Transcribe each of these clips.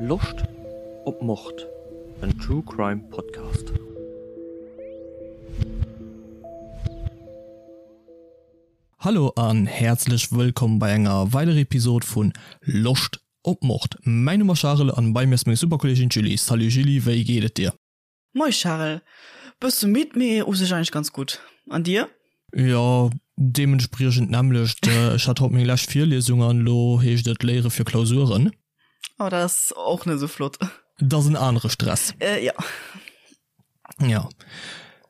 Loscht op Mord? En True Crime Podcast. Hallo an häerzlech wëllkomm bei enger weiderer Episode vun Loscht op Mord. Mäin Numm ass Charel an bei mir ass meng super Kolleegin d'Julie. Salut Julie, wéi geet et dir? Moi Charel, bësse midd, mee u sech eigentlech ganz gutt. An dir? Jo, deementspriechend d'nämmlecht. Ech hat haut meng lescht Virliesung an elo heescht et léiere fir Klausuren. Oh, dat ass och net esou flott. Dat ass en anere Stress. Jo. Jo.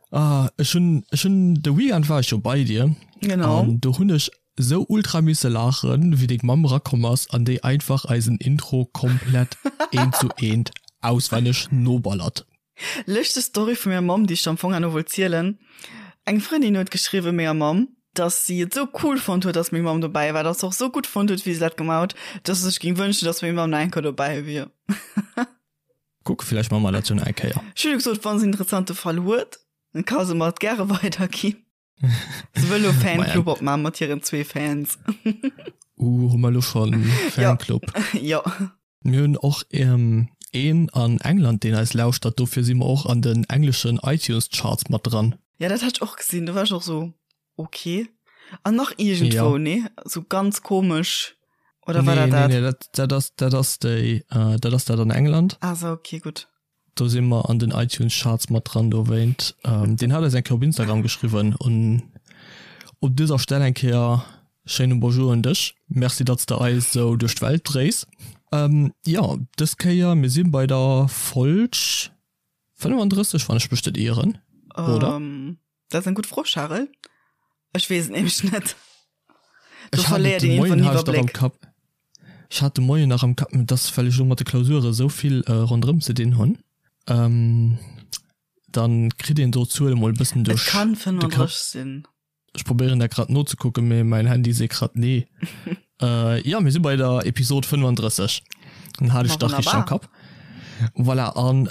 Ah, ech hunn, ech hunn, de Weekend war ech jo bei dir. Genau. An do hunn ech sou ultra misse laachen, wéi deng Mamm erakomm ass an déi einfach eisen Intro komplett eent zu eent auswenneg noballert. Lëschteg Story vu menger Mamm, déi ech der am Fong herno wollt zielen. Eng Frëndin huet geschriwwen menger Mamm, dass si et sou cool fonnt huet, dass meng Mamm dobäi war, dass se och sou gutt fonnt huet, wéi se dat gemaach huet, dass se sech géing wënschen, dass meng Mamm nach eng Kéier dobäi wier. Kuck, villäicht maache mer dat jo nach eng Kéier. Ech hunn jo gesot, wann se en interessante Fall huet, dann ka se mer et gäre weiderginn. Se wëll lo Fanclub opmachen mat hiren zwee Fans. Uh, hu mer lo schon Fanclub? Jo. Mir hunn och een an England, deen eis lauschtert, dofir si mer och an den engleschen iTunes Charts mat dran. Ja, dat hat ech och gesinn, do war ech och sou, ok. An nach iergendwou, nee? Sou ganz komesch, oder war dat dat? Nee, nee, dat, dat ass, dat ass déi, dat ass dat an England. Ah sou, ok, gutt. Do si mer an den iTunes Charts mat dran dowéint. Deen hat eis eng Kéier op Instagram geschriwwen un op dëser Stell eng Kéier schéine Bonjour un dech. Merci datts de eis sou duerch d'Welt dréis. Jo, dës Kéier, mir si bei der Folg 35, wann ech mech net ieren, oder? Dat ass eng gutt Fro, Charel. Ech weess et nämlech net. Do verléiert een iergendwann den Iwwerbléck. Ech hat de Moien nach am Kapp, mee dass well ech elo mat de Klausure esou vill ronderëm ze dinn hunn, dann kritt een do d'Zuele mol e bëssen duerch de Kapp. Et kann 35 sinn. Ech probéieren dat grad nozekucken, mee mäin Handy seet grad nee. Jo, mir si bei der Episod 35. Dann hat ech dach richteg am Kapp. Voilà, an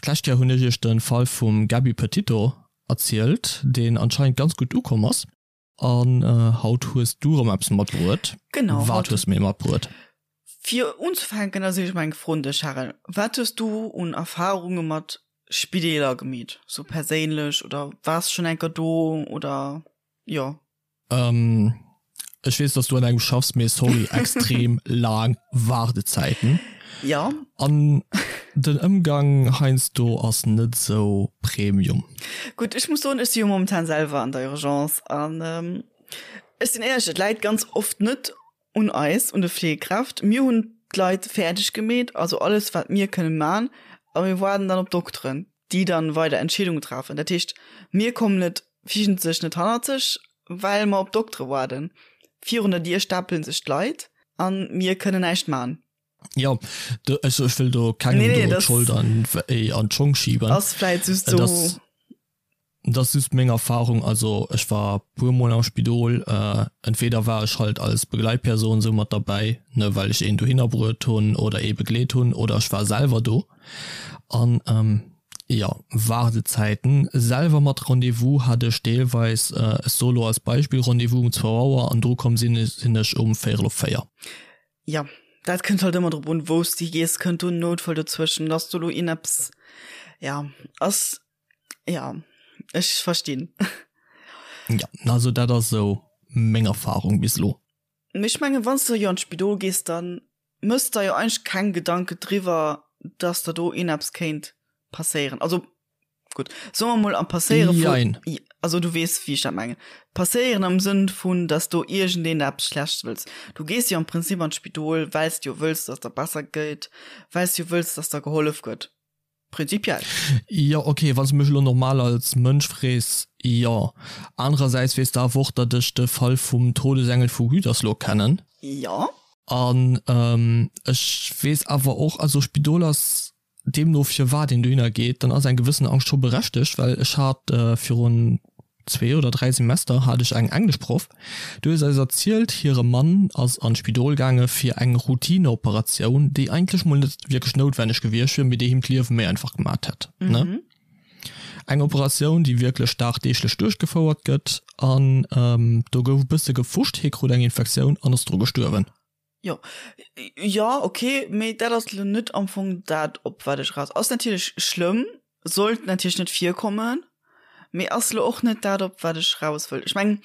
d'lescht Kéier hunn ech iech de Fall vum Gabby Petito erzielt, deen anscheinend ganz gutt ukomm ass. An haut hues du erëm eppes matbruet. Genau. Wat hues du mir matbruet? Fir unzefänken ass ech mol eng Fro un dech, Charel. Wat hues du un Erfarunge mat Spideeler gemeet, sou perséinlech oder waars schonn eng Kéier do oder jo? Ech weess, dass du an engem schaffs, mee sorry, extrem laang Waardezäiten. Jo. An den Ëmgang heiansdo ass net sou Premium. Gutt, ech muss soen, ech si jo momentan selwer an der Urgence an ech sinn éierlech, et läit ganz oft net un eis, un de Fleegekräft. Mir hunn d'Leit fäerdeg gemeet, also alles wat mir kënne man, a mir waarden dann op d'Dokteren, déi dann weider Entscheedungen treffen. Dat heescht, mir kommen net wiesentlech net hannerzeg, well mer op d'Doktere waarden. Virun der Dier stapelen sech d'Leit a mir kënnen näischt man. Jo, do, ech, ech wëll do kengem nee, nee, do d'Schold an, an d'Schong schieben. Ass vläit just sou. Dat ass just meng Erfahrung. Also ech war puer mol am Spidol. Entweder war ech halt als Begleitperson sou mat derbäi, ne, well ech een dohinner bruet hunn oder ee begleet hunn, oder ech war selwer do. An jo, Waardezäiten selwer mat Rendez-vous hat ech deelweis, ech soe lo als Beispill, Rendez-vous um zwou Auer an dru komm sinn sinn ech um véierel op 4. Jo, dat kënnt halt ëmmer drop un, wou s de gees. Kënnt do en Noutfall dozwëschen, dass do lo een eppes, ja, ass Ja, ech verstinn. Ja, also dat ass esou meng Erfahrung bis elo. Mee ech mengen, wann s de jo an d'Spidol gees, da mëss der jo eigentlech keng Gedanke driwwer, dass der do ieneppes kéint passéieren. Also gutt, soe mer mol am passéiere vu, Jein. also du weess, wéi ech dat mengen. Passéieren am Sënn vun, dass do iergendeen der eppes Schlechtes wëlls. Du gees jo am Prinzip an d'Spidol, well s de jo wëlls, dass der besser geet, well s de jo wëlls, dass der gehollef gëtt. Prinzipiell. Jo, ok, wann s de mech elo normal als Mënsch frees, jo. Anerersäits weess de awer och, datt ech de Fall vum Todesengel vu Gütersloh kennen. Jo. An ech weess awer och, also Spidol ass deemno firwat een dohinner geet, dann ass eng gewëssen Angscht scho berechtegt, well ech hat virun zwee oder 3 Semester hat ech eng Engleschproff, déi huet eis erzielt, hire Mann ass an d'Spidol gaange fir eng Routineoperatioun, déi eigentlech mol net wierklech noutwenneg gewiescht wier, mee déi him d'Liewe méi einfach gemat hätt. Ne? Eng Operatioun, déi wierklech dagdeeglech duerchgefouert gëtt an do gouf e bësse gefuscht, hie krut eng Infektioun an ass dru gestuerwen. Jo, jo, ok, mee dat ass lo net am Fong dat, op wat ech eraus. Ass natierlech schlëmm, sollt natierlech net virkommen, mee ass lo och net dat, op wat ech raus wëll. Ech mengen,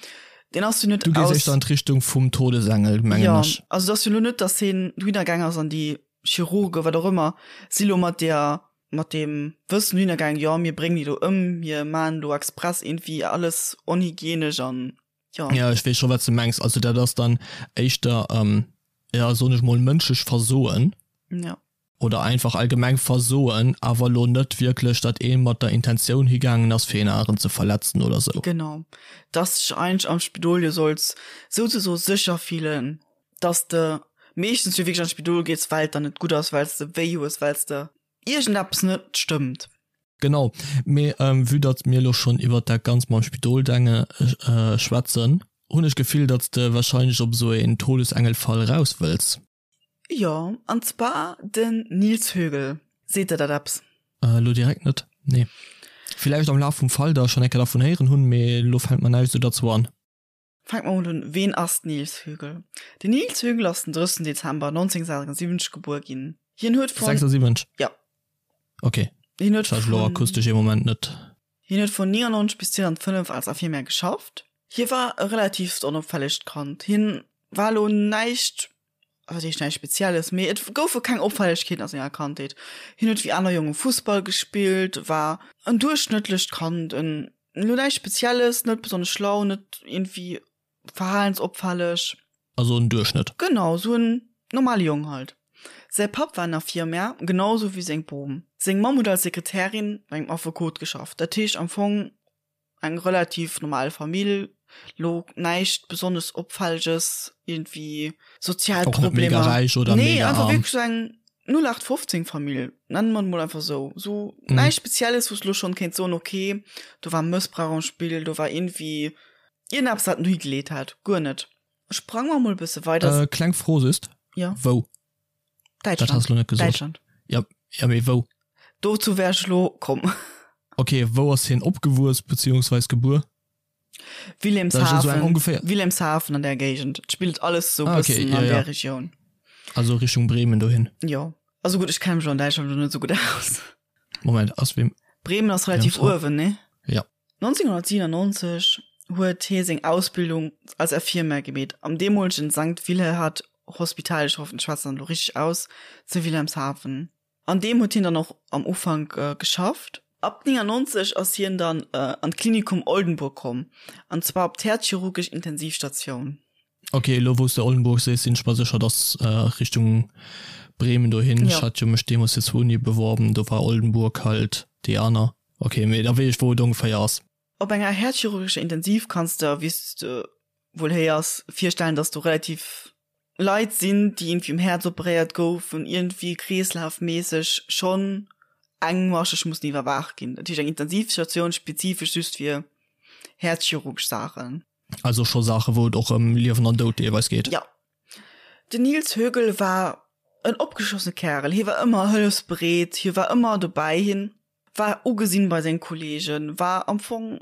deen ass jo net Du gees éischter an d'Richtung vum Todesengel, mengen Jo, ech. also et ass jo lo net, datt hien dohinner gaang ass an déi Chirurgen, wat och ëmmer, si lo mat där, mat deem Wëssen dohinner gaang, jo, mir bréngen déi do ëm, mir maachen do express iergendwéi alles onhygienesch an. Jo. Ja, ech weess scho wat s de mengs. Also dat ass dann éischter, ja soen ech mol, mënschlech Versoen. Ja. Oder einfach allgemeng Versoen, awer elo net wierklech, datt ee mat der Intentioun higaangen ass, fir een aneren ze verletzen oder sou. Genau. Dass dech eigentlech am Spidol jo solls souzesoe sécher fillen, dass de meeschtens jo wierklech an d'Spidol gees, well et der net gutt ass, well s de wéi hues, well s de iergendeppes net stëmmt. Genau, mee vue datt mir elo schonn iwwert dat Ganzt mam Spidol-Denge schwätzen, hunn ech d'Gefill, datt s de warscheinlech op esou een Todesengelfall raus wëlls. Jo, an zwar den Nils Högel. Seet der dat eppes? Elo direkt net, nee. Villäicht am Laf vum Fall da schonn eng Kéier dervun héieren hunn, mee elo fält mer näischt esou derzou an. Fänke mer mol un, Ween ass den Nils Högel? Den Nils Högel ass den 30. Dezember 1976 gebuer ginn. Hien huet vun. 76? Ja. Ok. Hien huet Ech hat elo vun. akustesch ee Moment net. Hien huet vun 99 bis 2005 als Infirmière geschafft. Hie war e relativt onopfällegt Kand. Hien war elo näischt, wat heescht näischt Spezielles, mee et goufe keng Opfällegkeeten a senger Kandheet. Hien huet wéi aner Jonge Fussball gespillt, war en duerchschnëttlecht Kand, en Elo näischt Spezielles, net besonnesch schlau, net iergendwéi verhalensopfälleg. Also en Duerchschnëtt. Genau, esou en normale Jong halt. Säi Papp war en Infirmier, genau esou wéi seng Bom. Seng Mamm huet als Sekretärin bei engem Affekot geschafft. Dat heescht am Fong eng relativ normal Famill, lo näischt besonnesch Opfälleges, iergendwéi sozial Och net mega Problemer. räich oder Nee, mega einfach arm. wierklech esou eng 0815 Famill, nennen mer et mol einfach esou. Esou näischt Spezielles, wou s de lo schonn kéints soen, okay, do war Mëssbrauch am Spill, do war iergendwéi iergendeppes, wat en dohi geleet hat. Guer net. Sprange mer mol e bësse weider. Äh, kleng Fro just. Jo. Wou? Dat Däitschland. has de lo net gesot. Däitschland. Ja, ja, mee wou? Dozou wär ech lo komm. Okay, wou ass hien opgewuess beziehungsweis gebuer? Wilhelmshaven, ungefähr Wilhelmshaven an der Géigend. Et spillt alles sou ah, okay, bëssen ja, an ja. der Regioun. Also Richtung Bremen dohin. Jo. Also gutt, ech kenne mech an Däitschland lo net sou gutt aus. Moment, ass wem Bremen ass relativ uewen, ne? Ja. 1997 huet hie seng Ausbildung als Infirmier gemeet am deemolegen Sankt Wilhelhard Hospital, ech hoffen ech schwätzen dat elo richteg aus, zu Wilhelmshaven. An deem huet hien dann och am Ufank geschafft. Ab 99 ass hien dann an d'Klinikum Oldenburg komm, an zwar op d'häerzchirurgesch Intensivstatioun. Ok, elo wou s de Oldenburg sees, sinn ech mer sécher, dass Richtung Bremen dohin. Ech hat jo mech deemools fir zwou Unie beworben, do war Oldenburg halt déi aner. Ok, mee da weess ech wou et ongeféier ass. Op enger häerzchirurgescher Intensiv kanns de, wéi s de wuel héiers, virstellen, dass do relativ Leit sinn, déi iergendwéi um Häerz operéiert goufen, iergendwéi kreeslafméisseg schonn engmascheg mussen iwwerwaacht ginn. Dat heescht eng Intensivstatioun spezifesch just fir häerzchirurgesch Saachen. Also scho Saachen, wou et och ëm Liewen an Doud deelweis geet. Jo. Den Nils Högel war en opgeschlossene Kärel. Hie war ëmmer hëllefsbereet, hie war ëmmer dobäi, hien war ugesinn bei senge Kollegen, war am Fong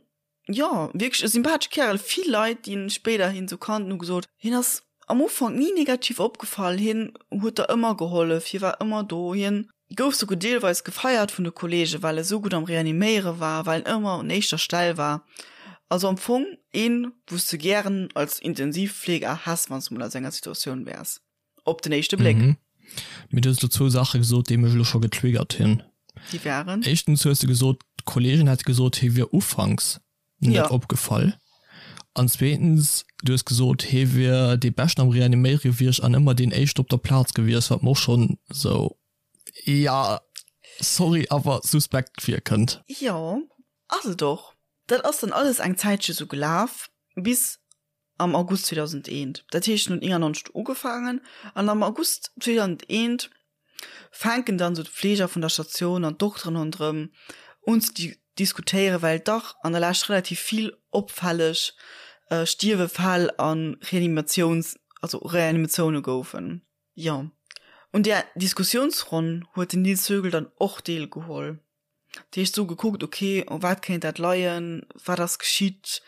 jo, wierklech e sympathesche Kärel. Vill Leit, déi en spéiderhin sou kannten, hu gesot, hien ass am Ufank ni negativ opgefall, hien huet der ëmmer gehollef, hie war ëmmer do, hien gouf souguer deelweis gefeiert vun de Kollegen, well e sou gutt am Reaniméiere war, well en ëmmer un éischter Stell war. Also am Fong een, wou s de gären als Intensivfleeger häss, wann s de mol a senger Situatioun wäers. Op den éischte Bléck. Mhm. Mee du hues elo zwou Saache gesot, déi mech elo scho getriggert hunn. Déi waren? Éischtens hues de gesot, d'Kolleegen hätte gesot, hie wier ufanks net Ja. opgefall. An zweetens, du hues gesot, hie wier dee Beschten am Reaniméiere gewiescht an ëmmer deen Éischte op der Plaz gewiescht, wat mer och schonn esou, ja, sorry, awer suspekt virkënnt. Jo, ass et och. Dat ass dann alles eng Zäitche sou gelaf, bis am August 2001. Dat heescht, en huet 99 ugefaangen an am August 2001 fänken dann esou d'Fleeger vun der Statioun an d'Dokteren ronderëm un ze diskutéieren, well dach an der Lescht relativ vill opfälleg Stierwefäll a Reanimatiouns, also Reanimatioune goufen. Jo, un där Diskussiounsronn huet den Nils Högel dann och deelgeholl. Dat heescht, sou gekuckt, ok, u wat kéint dat leien, wat ass geschitt,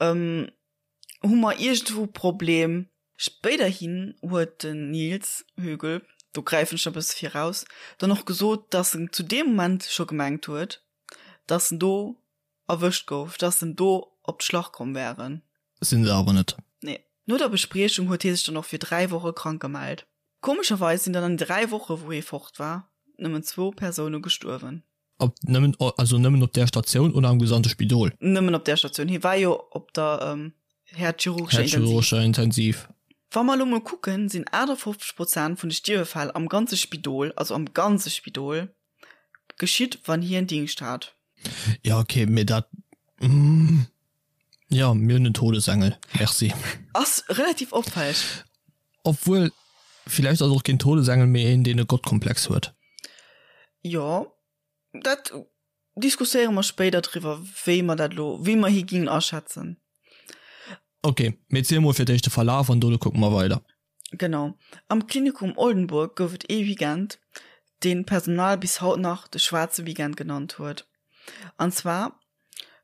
hu mer iergendwou e Problem? Spéiderhin huet den Nils Högel, do gräifen ech e bësse viraus, dann och gesot, dass en zu deem Moment scho gemengt huet, dass en do erwëscht gouf, dass en do op d'Schlach komm wären. Sinn se awer net. Nee. No der Bespriechung huet hie sech dann och fir 3 Woche krank gemellt. Komescherweis sinn dann an den 3 Woche wou hie fort war, nëmmen zwou Persoune gestuerwen. Op nëmmen, also nëmmen op där Statioun oder am gesamte Spidol? Nëmmen op där Statioun. Hie war jo op der häerzchirurgescher Intensiv. Häerzchirurgescher Intensiv. Wa mer elo mol kucken, sinn 58 Prozent vun de Stierwefäll am ganze Spidol, also am ganze Spidol, geschitt, wann hien Dingscht hat. Jo, okay, mee dat, jo, mir hunn en Todesengel, merci. Ass relativ opfälleg. Obwuel, villäicht ass et och keen Todesengel, mee een, deen e Gottkomplex huet. Jo, dat diskusséiere mer spéider driwwer, wéi mer dat elo, wéi mer hie gingen aschätzen. Ok, mee ziel mol fir d'éischt de Verlaf an dono kucke mer weider. Genau. Am Klinikum Oldenburg gouf et ee Weekend, deen d'Personal bis haut nach de schwaarze Weekend genannt huet. An zwar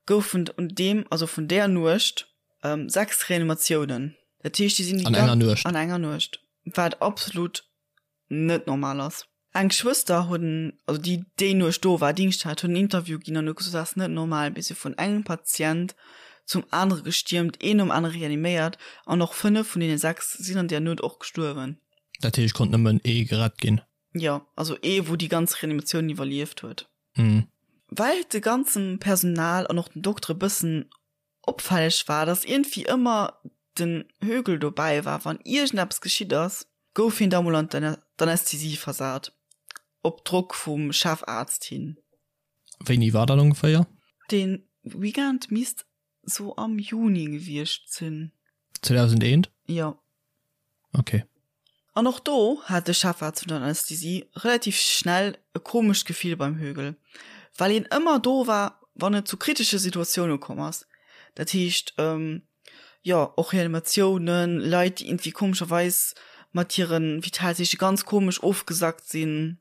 goufen un deem, also vun där Nuecht, 6 Reanimatiounen. Dat heescht, déi sinn déi An enger Nuecht? An enger Nuecht, wat absolut net normal ass. Eng Schwëster huet en, also déi déi Nuecht do war, Dingscht hat, huet en Interview ginn an huet gesot, dat ass net normal, mir si vun engem Patient zum anere gestiermt, een nom anere reaniméiert an och 5 vun deene 6 sinn an där Nuet och gestuerwen. Dat heescht, konnt nëmmen ee gerett ginn? Jo, also ee wou déi ganz Reanimatioun iwwerlieft huet. Well et de ganze Personal an och den Doktere bëssen Opfälleg war, dass iergendwéi ëmmer den Högel dobäi war, wann iergendeppes geschitt ass, gouf hien da mol an d'Anästhesie versat, op Drock vum Chefaarzt hin. Wéini war dat ongeféier? Dee Weekend misst sou am Juni gewiescht sinn. 2001? Jo. Ok. An och do hat de Chefarzt vun der Anästhesie relativ schnell e komescht Gefill beim Högel, well hien ëmmer do war, wann et zu kritesche Situatioune komm ass. Dat heescht, jo, och Reanimatiounen, Leit, déi iergendwéi komescherweis mat hire Vitalzeeche ganz komesch ofgesackt sinn.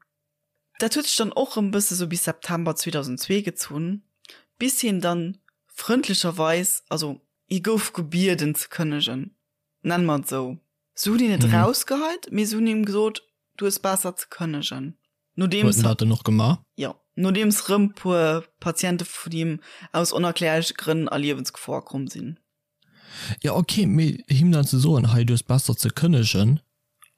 Dat huet sech dann och rëm bësse sou bis September 2002 gezunn, bis hien dann frëndlecherweis, also hie gouf gebieden ze kënnegen, nenne mer et esou. Se hunn hien net rausgeheit, mee se hunn him gesot, du hues besser ze kënnegen. Nodeems. Huet en dat dann och gemaach? Jo, nodeems rëm puer Patiente vun him aus onerklärleche Grënn a Liewensgefor komm sinn. Jo, ok, mee him dann ze soen, hei, du hues besser ze kënnegen,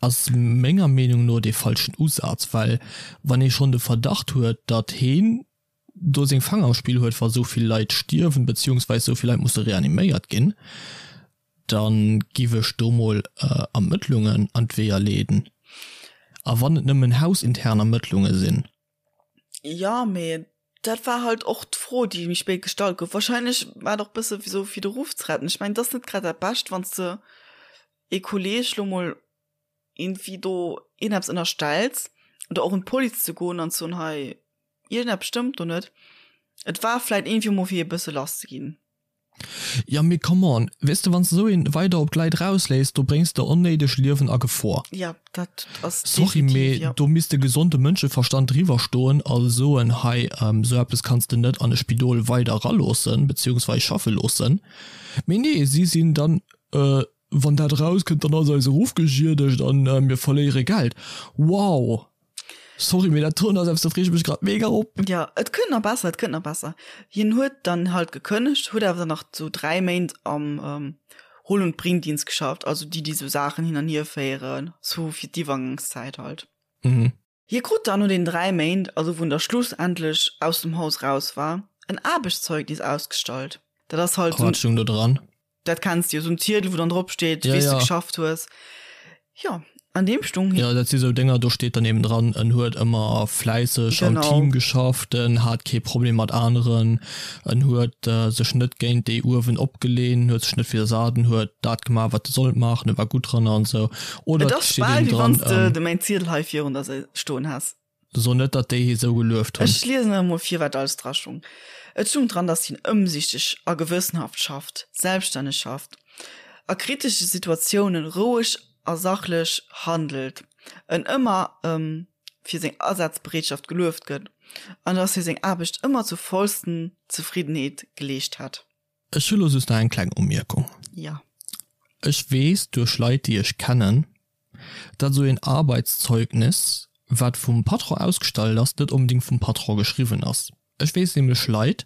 ass menger Meenung no dee falschen Usaz, well wann ee schonn de Verdacht huet, datt heen do seng Fanger am Spill huet, wa sou vill Leit stierwen, beziehungsweis sou vill Leit musse reaniméiert ginn, da giff ech do mol Ermëttlungen an d'Weeër leeden. A wann et nëmmen hausintern Ermëttlunge sinn. Jo, mee dat war halt och d'Fro, déi méi spéit gestallt gouf. Wahrscheinlech war et och bësse sou fir de Ruff ze retten. Ech mengen, et ass net grad dat Bescht, wann s de ee Kolleeg lo mol iergendwéi do iergendeppes ënnerstells oder och un d'Police ze goen an ze soen, hei, iergendeppes stëmmt do net. Et war vläit iergendwéi mol fir e bësse lass ze ginn. Jo mee come on, weess de wanns de sou een weider op d'Leit rausléiss, do bréngs de onnéideg Liewen a Gefor. Jo, dat ass Sorry definitiv, mee jo. do misst de gesonde Mënscheverstand driwwer stoen a soen, hei sou eppes kanns de net an e Spidol weider eraloossen, beziehungsweis schaffe loossen. Mee nee, si sinn dann, wann dat erauskënnt, dann ass eise Ruff geschiedegt an mir verléiere Geld. Wow! Sorry, mee dat doen ass eppes, do freeg ech mech grad mega op. Jo, et kënnt nach besser, et kënnt nach besser. Hien huet dann halt gekënnegt, huet awer dann nach sou 3 Méint am Hol und Bringdienst geschafft, also déi, déi sou Saachen hin an hier féieren, sou fir d'Iwwergangszäit halt. Mhm. Hie krut dann no den 3 Méint, also wou en da schlussendlech aus dem Haus raus war, en Aarbechtszeugnis ausgestallt. Dat ass halt sou. Wat stoung do dran? Dat kenns de jo, sou en Ziedel, wou dann drop steet, ja, wéi s de ja. geschafft hues. Jo, an deem stung. Jo, dat si sou Dénger, do steet dann eben dran, en huet ëmmer fläisseg am Team geschafft, en hat kee Problem mat aneren, en huet sech net géint déi uewen opgelehnt, en huet sech net widdersat, en huet dat gemaach, wat e sollt maachen, e war gutt dran an esou. Oder et ass bal, wéi wann s de de mäin Ziedel hei virun der stoen häss. So net, datt déi hie sou gelueft hunn. Ech liesen awer mol vir, wat alles dra stung. Et stung dran, datt hien ëmsichteg a gewëssenhaft schafft, selbststänneg schafft, a kritesche Situatiounen roueg a sachlech handelt, en ëmmer fir seng Asazbereetschaft gelueft gëtt an datt hie seng Aarbecht ëmmer zur vollsten Zefriddenheet geleescht hätt. Ech hu lo just nach eng kleng Umierkung. Jo. Ech weess duerch Leit déi ech kennen, datt esou een Arbeitszeugnis, wat vum Patron ausgestallt ass, net onbedéngt vum Patron geschriwwen ass. Ech weess nämlech Leit,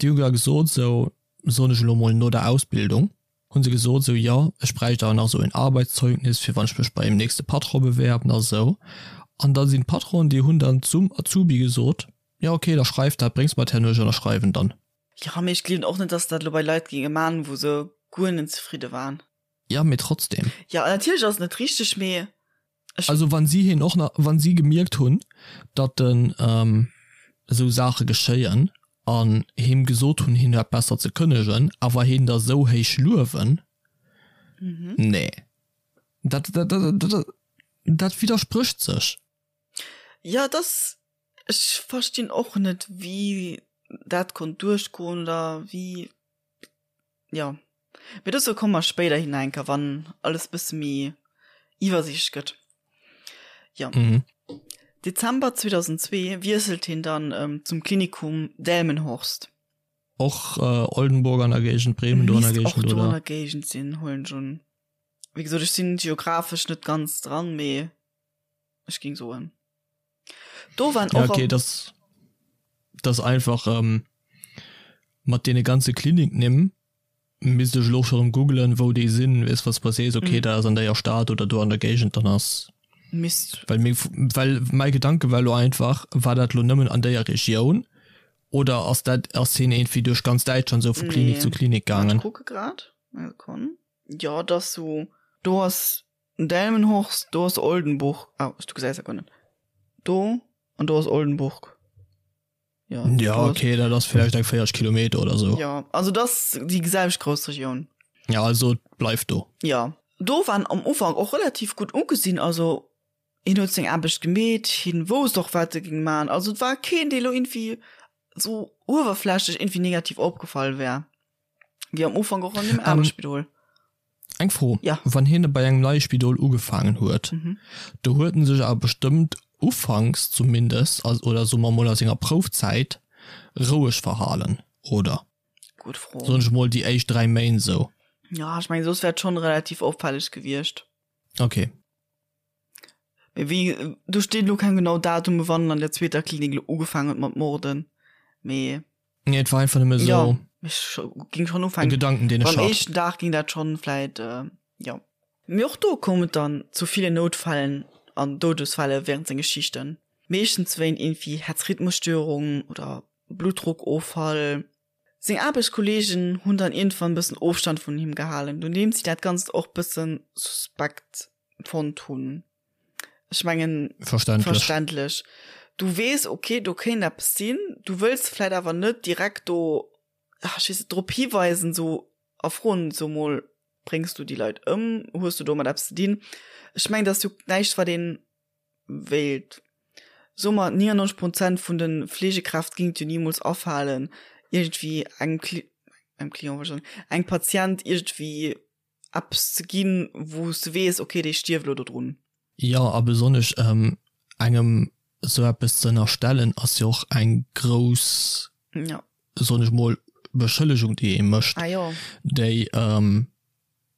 déi hu gar gesot, esou soen ech elo mol no der Ausbildung, hu se gesot, esou jo, ech bräicht awer nach esou een Arbeitszeugnis, fir wann ech mech bei dem nächste Patron bewerben a sou. An da sinn d'Patronen, déi hunn dann zum Azubi gesot, jo okay, da schreif dat, bréngs mer et herno, ech ënnerschreiwen dann. Jo, mee ech gleewen och net, dass dat elo bei Leit géinge man, wou se guer net zefridde waren. Jo, mee trotzdem. Jo, natierlech ass et net richteg, mee ech. Also wann si hien och nach, wann si gemierkt hunn, datt en esou Saache geschéien an him gesot hunn, hien hätt besser ze kënnegen, awer hien da sou héich luewen, nee, dat, dat, dat, dat widdersprécht sech. Jo, et ass Ech verstinn och net wéi dat konnt duerchgoen oder wéi, jo. Mee dozou komme mer spéiderhin nach eng Kéier, wann alles bësse méi iwwersiichtlech gëtt. Jo. Dezember 2002 wiesselt hien dann zum Klinikum Delmenhorst. Och Oldenburg an der Géigend, Bremen do an der Géigend, oder? Misst och do an der Géigend sinn, huelen ech un. Wéi gesot, ech sinn geographesch net ganz dran, mee ech géing soen. Do waren och. Ja, okay, das, das einfach ähm, mat deene ganze Kliniknimm misst ech elo scho rëm googlen, wou déi sinn, weess was was sees, okay, mm. da ass an déier Stad oder do an der Géigend, dann ass. Misst. Well, meng, well mäi Gedanke war lo einfach, war dat lo nëmmen an déier Regioun oder ass dat ass hien irgendwie duerch ganz Däitschland sou vu Klinik nee. zu Klinik gaangen? Ech kucke grad. Sekonn. Ja, dat so do ass Delmenhorst, do ass Oldenburg. Ah, du gesäis dat guer net. Do an do ass Oldenburg. Ja, ja okay, dat ass vläicht eng 40 Kilometer oder sou. Ja, also dat ass déi selwecht grouss Regioun. Ja, also et bleift do. Ja, do war en am Ufank och relativ gutt ugesinn. Also hien huet seng Aarbecht gemeet, hien wousst och wat e géing man. Also et war keen, dee lo iergendwéi sou uewerflächlech iergendwéi negativ opgefall wär. Wéi am Ufank och an deem anere Spidol. Eng Fro, Ja. Wann hien bei engem neie Spidol ugefaangen huet, do huet en sech awer bestëmmt ufanks zumindest, oder soe mer mol a senger Proufzäit, roueg verhalen, oder? Gutt Fro. Soen ech mol déi éischt 3 Méint esou. Ja, ech mengen, soss wär et schonn relativ opfälleg gewiescht. Okay. Mee wéi, do steet elo keng genau Datume wann en an der zweeter Klinik elo ugefaangen huet mat morden, mee. Nee, et war einfach nëmme sou. Ja, ech ging schon ufänken. E Gedanken, deen ech hat. Beim éischten Dag ging dat schon vläit, jo. Mee och do koum et dann zu ville Noutfällen an Doudesfälle während senge Schichten. Meeschtens wéint iergendwéi Herzrhythmusstörung oder Bluttdruckoffall. Seng Aarbechtskolleegen hunn dann iergendwann bëssen Ofstand vun him gehalen, nodeems si dat Ganzt och bëssen suspekt fonnt hunn. Ech mengen, Verständlech. verständlech. Du weess, okay, do kéint eppes sinn, du wëlls vläit awer net direkt do, ach, ech weess net, drop hiweisen, sou a froen, so mol, bréngs du déi Leit ëm, hues du domat eppes ze dinn? Ech mengen, dat ass jo näischt, wat ee wéilt. So mer, 99 Prozent vun de Fleegekräft géing et jo nimools afalen, iergendwéi engem Cli-, engem Client, wollt ech soen, engem Patient iergendwéi eppes ze ginn, wou s de weess, okay, dee stierft elo dodrun. Jo, a besonnesch engem esou eppes ze ënnerstellen, ass jo och eng grouss, ja. soen ech mol, Beschëllegung, déi ee mécht, ah, jo. déi,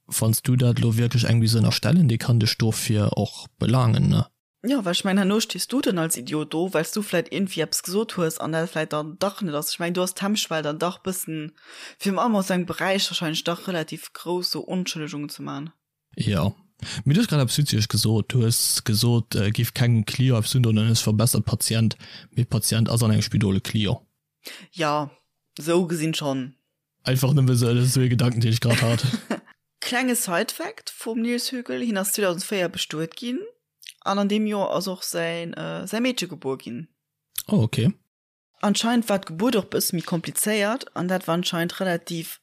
wann s du dat elo wierklech engem géifs ënnerstellen, dee kann dech dofir och belaangen, ne? Jo, well ech mengen, herno stees du dann als Idiot do, well s du vläit iergendwéi eppes gesot hues an dat vläit dann dach net ass. Ech mengen, do ass d'Hemmschwell dann dach bëssen, virun allem aus engem Beräich wahrscheinlech dach relativ grouss, sou Onschëllegungen ze man. Jo. Mee du hues grad eppes Witzeges gesot. Du hues gesot, giff kengem Client eppes undoen an hues verbessert Patient. Mee Patient ass an engem Spidol e Client. Jo, sou gesinn schonn. Einfach nëmme sou, dat ass sou ee Gedanken, deen ech grad hat. Klenge Side-Fact vum Nils Högel, Hien ass 2004 bestuet ginn an an deem Joer ass och säin säi Meedche gebuer ginn. Oh ok. Anscheinend war d'Gebuert och bësse méi komplizéiert an dat war anscheinend relativ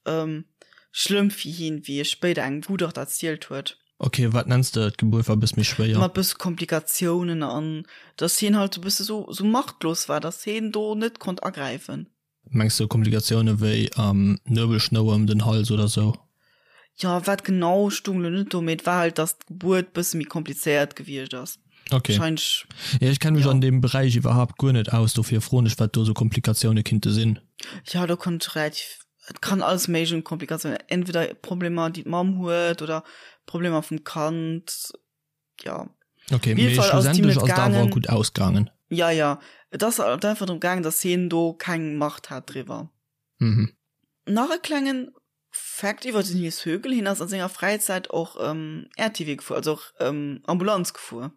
schlëmm fir hien, wéi e spéider engem Gutachter erzielt huet. Ok, wat nenns de d'Gebuert war bësse méi schwéier? Mat bësse Komplikatiounen an dass hien halt sou bësse sou sou machtlos war, dass hien do net konnt agräifen. Mengs de Komplikatioune wéi Nuebelschnouer ëm den Hals oder sou? Jo, wat genau stung lo net do, mee et war halt, dass d'Gebuert bësse méi komplizéiert gewiescht ass. Ok. Wahrscheinlech, Jo, ech kenne mech jo. an deem Beräich iwwerhaapt guer net aus, dofir froen ech, wat do sou Komplikatioune kinnte sinn. Jo, do konnt ech relativ. Et kann alles méiglech un Komplikatiounen, entweder Problemer, déi d'Mamm huet oder Problemer vum Kand, jo. Ok, mee schlussendlech ass et awer gutt ausgaangen. Jo, jo, et ass halt einfach drëm gaangen, datt hien do keng Macht hat driwwer. Mhm. Nach e klengen Fact iwwer den Nils Högel, Hien ass a senger Fräizäit och RTW gefuer, also och Ambulanz gefuer.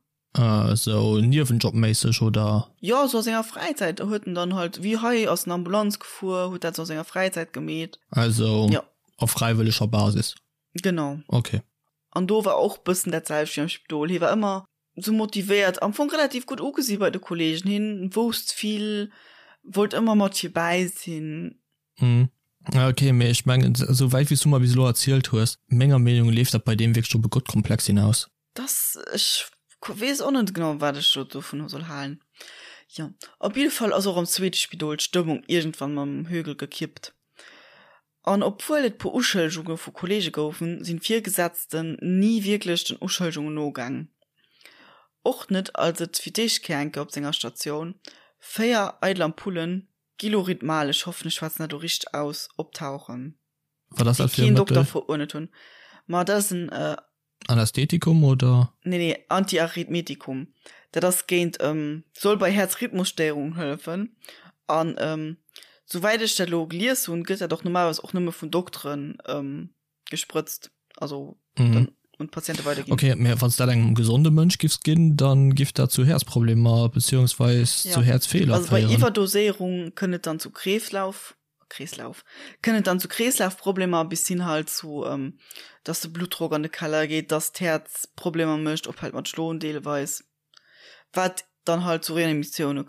Sou Niewenjobméisseg oder? Jo, sou a senger Fräizäit huet en dann halt, wéi hei ass en Ambulanz gefuer, huet dat sou a senger Fräizäit gemeet. Also op fräiwëlleger Basis? Genau. Ok. An do war och bëssen dat selwecht wéi am Spidol. Hie war ëmmer sou motivéiert, am Fong relativ gutt ugesi bei de Kollegen. Hien wousst vill, wollt ëmmer mat virbäi sinn. Mhm. Ok, mee ech mengen, esou wäit wéi s du mer bis elo erzielt hues, menger Meenung leeft dat bei deem wierklech op e Gottkomplex hinaus. Dass, ech weess och net genau, wat ech do dovun soll halen. Jo, op jidde Fall ass och am zweete Spidol d'Stëmmung iergendwann mam Högel gekippt. An obwuel et puer Uschëllegunge vu Kolleege goufen, sinn d'Virgesetzten ni wierklech den Uschëllegungen nogaang. Och net, als et fir d'éischt Kéier eng Kéier op senger Statioun 4 eidel Ampullen Gilorytmal, ech hoffen ech schwätzen dat elo richteg aus, optauchen, Wat ass déi dat fir e keen Dokter Mëttel? veruerdnet hunn. Ma dat ass en. Anästhetikum oder? Nee, nee, Antiarrhythmetikum. Dat ass géint, soll bei Häerzrhythmusstéierungen hëllefen. An souwäit ech dat elo gelies hunn, gëtt dat och normalerweis och nëmme vun Dokteren gesprëtzt, also dann un d'Patiente weiderginn. Ok, mä wann s dat engem gesonde Mënsch giffs ginn, da giff dat zu Häerzproblemer beziehungsweis zu Häerzfeeler féieren. Also bei Iwwerdoséierung kënnt et dann zu Kreeslauf Kreeslauf, kënnt et dann zu Kreeslafproblemer bis hin halt zu, dass de Bluttdrock an de Keller geet, dass d'Häerz Problemer mécht, ophält mat schloen deelweis, wat dann halt zu Reanimatioune,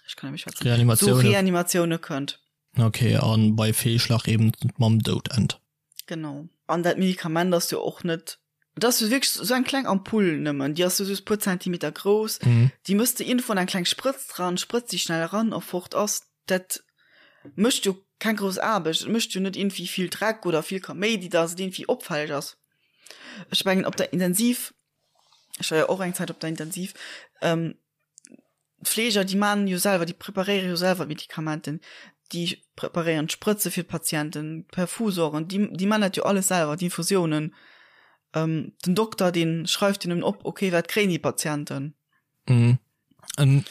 ech kann net méi schwätzen, zu Reanimatioune. Reanimatioune kënnt. Ok, a bei Feelschlag eben mam Doud ennt. Genau. An dat Medikament ass jo och net, et ass jo wierklech esou eng kleng Ampull nëmmen, déi ass jo just e puer Zentimeter grouss, déi mëss de iergendwou an eng kleng Sprëtz dran, sprëtz déi schnell eran a fort ass. Dat mécht jo keng grouss Aarbecht, et mécht jo net iergendwéi vill Dreck oder vill Kaméidi, dass et iergendwéi opfälleg ass. Ech mengen op der Intensiv, ech war jo och eng Zäit op der Intensiv, D'Fleeger, déi man jo selwer, déi preparéiere jo selwer d'Medikamenten, déi preparéieren d'Sprëtze fir d'Patienten, d'Perfusoren, déi, déi man dat jo alles selwer, d'Infusiounen. Den Dokter, dee schreift jo nëmmen op, okay, wat kréien déi Patienten. Mhm. An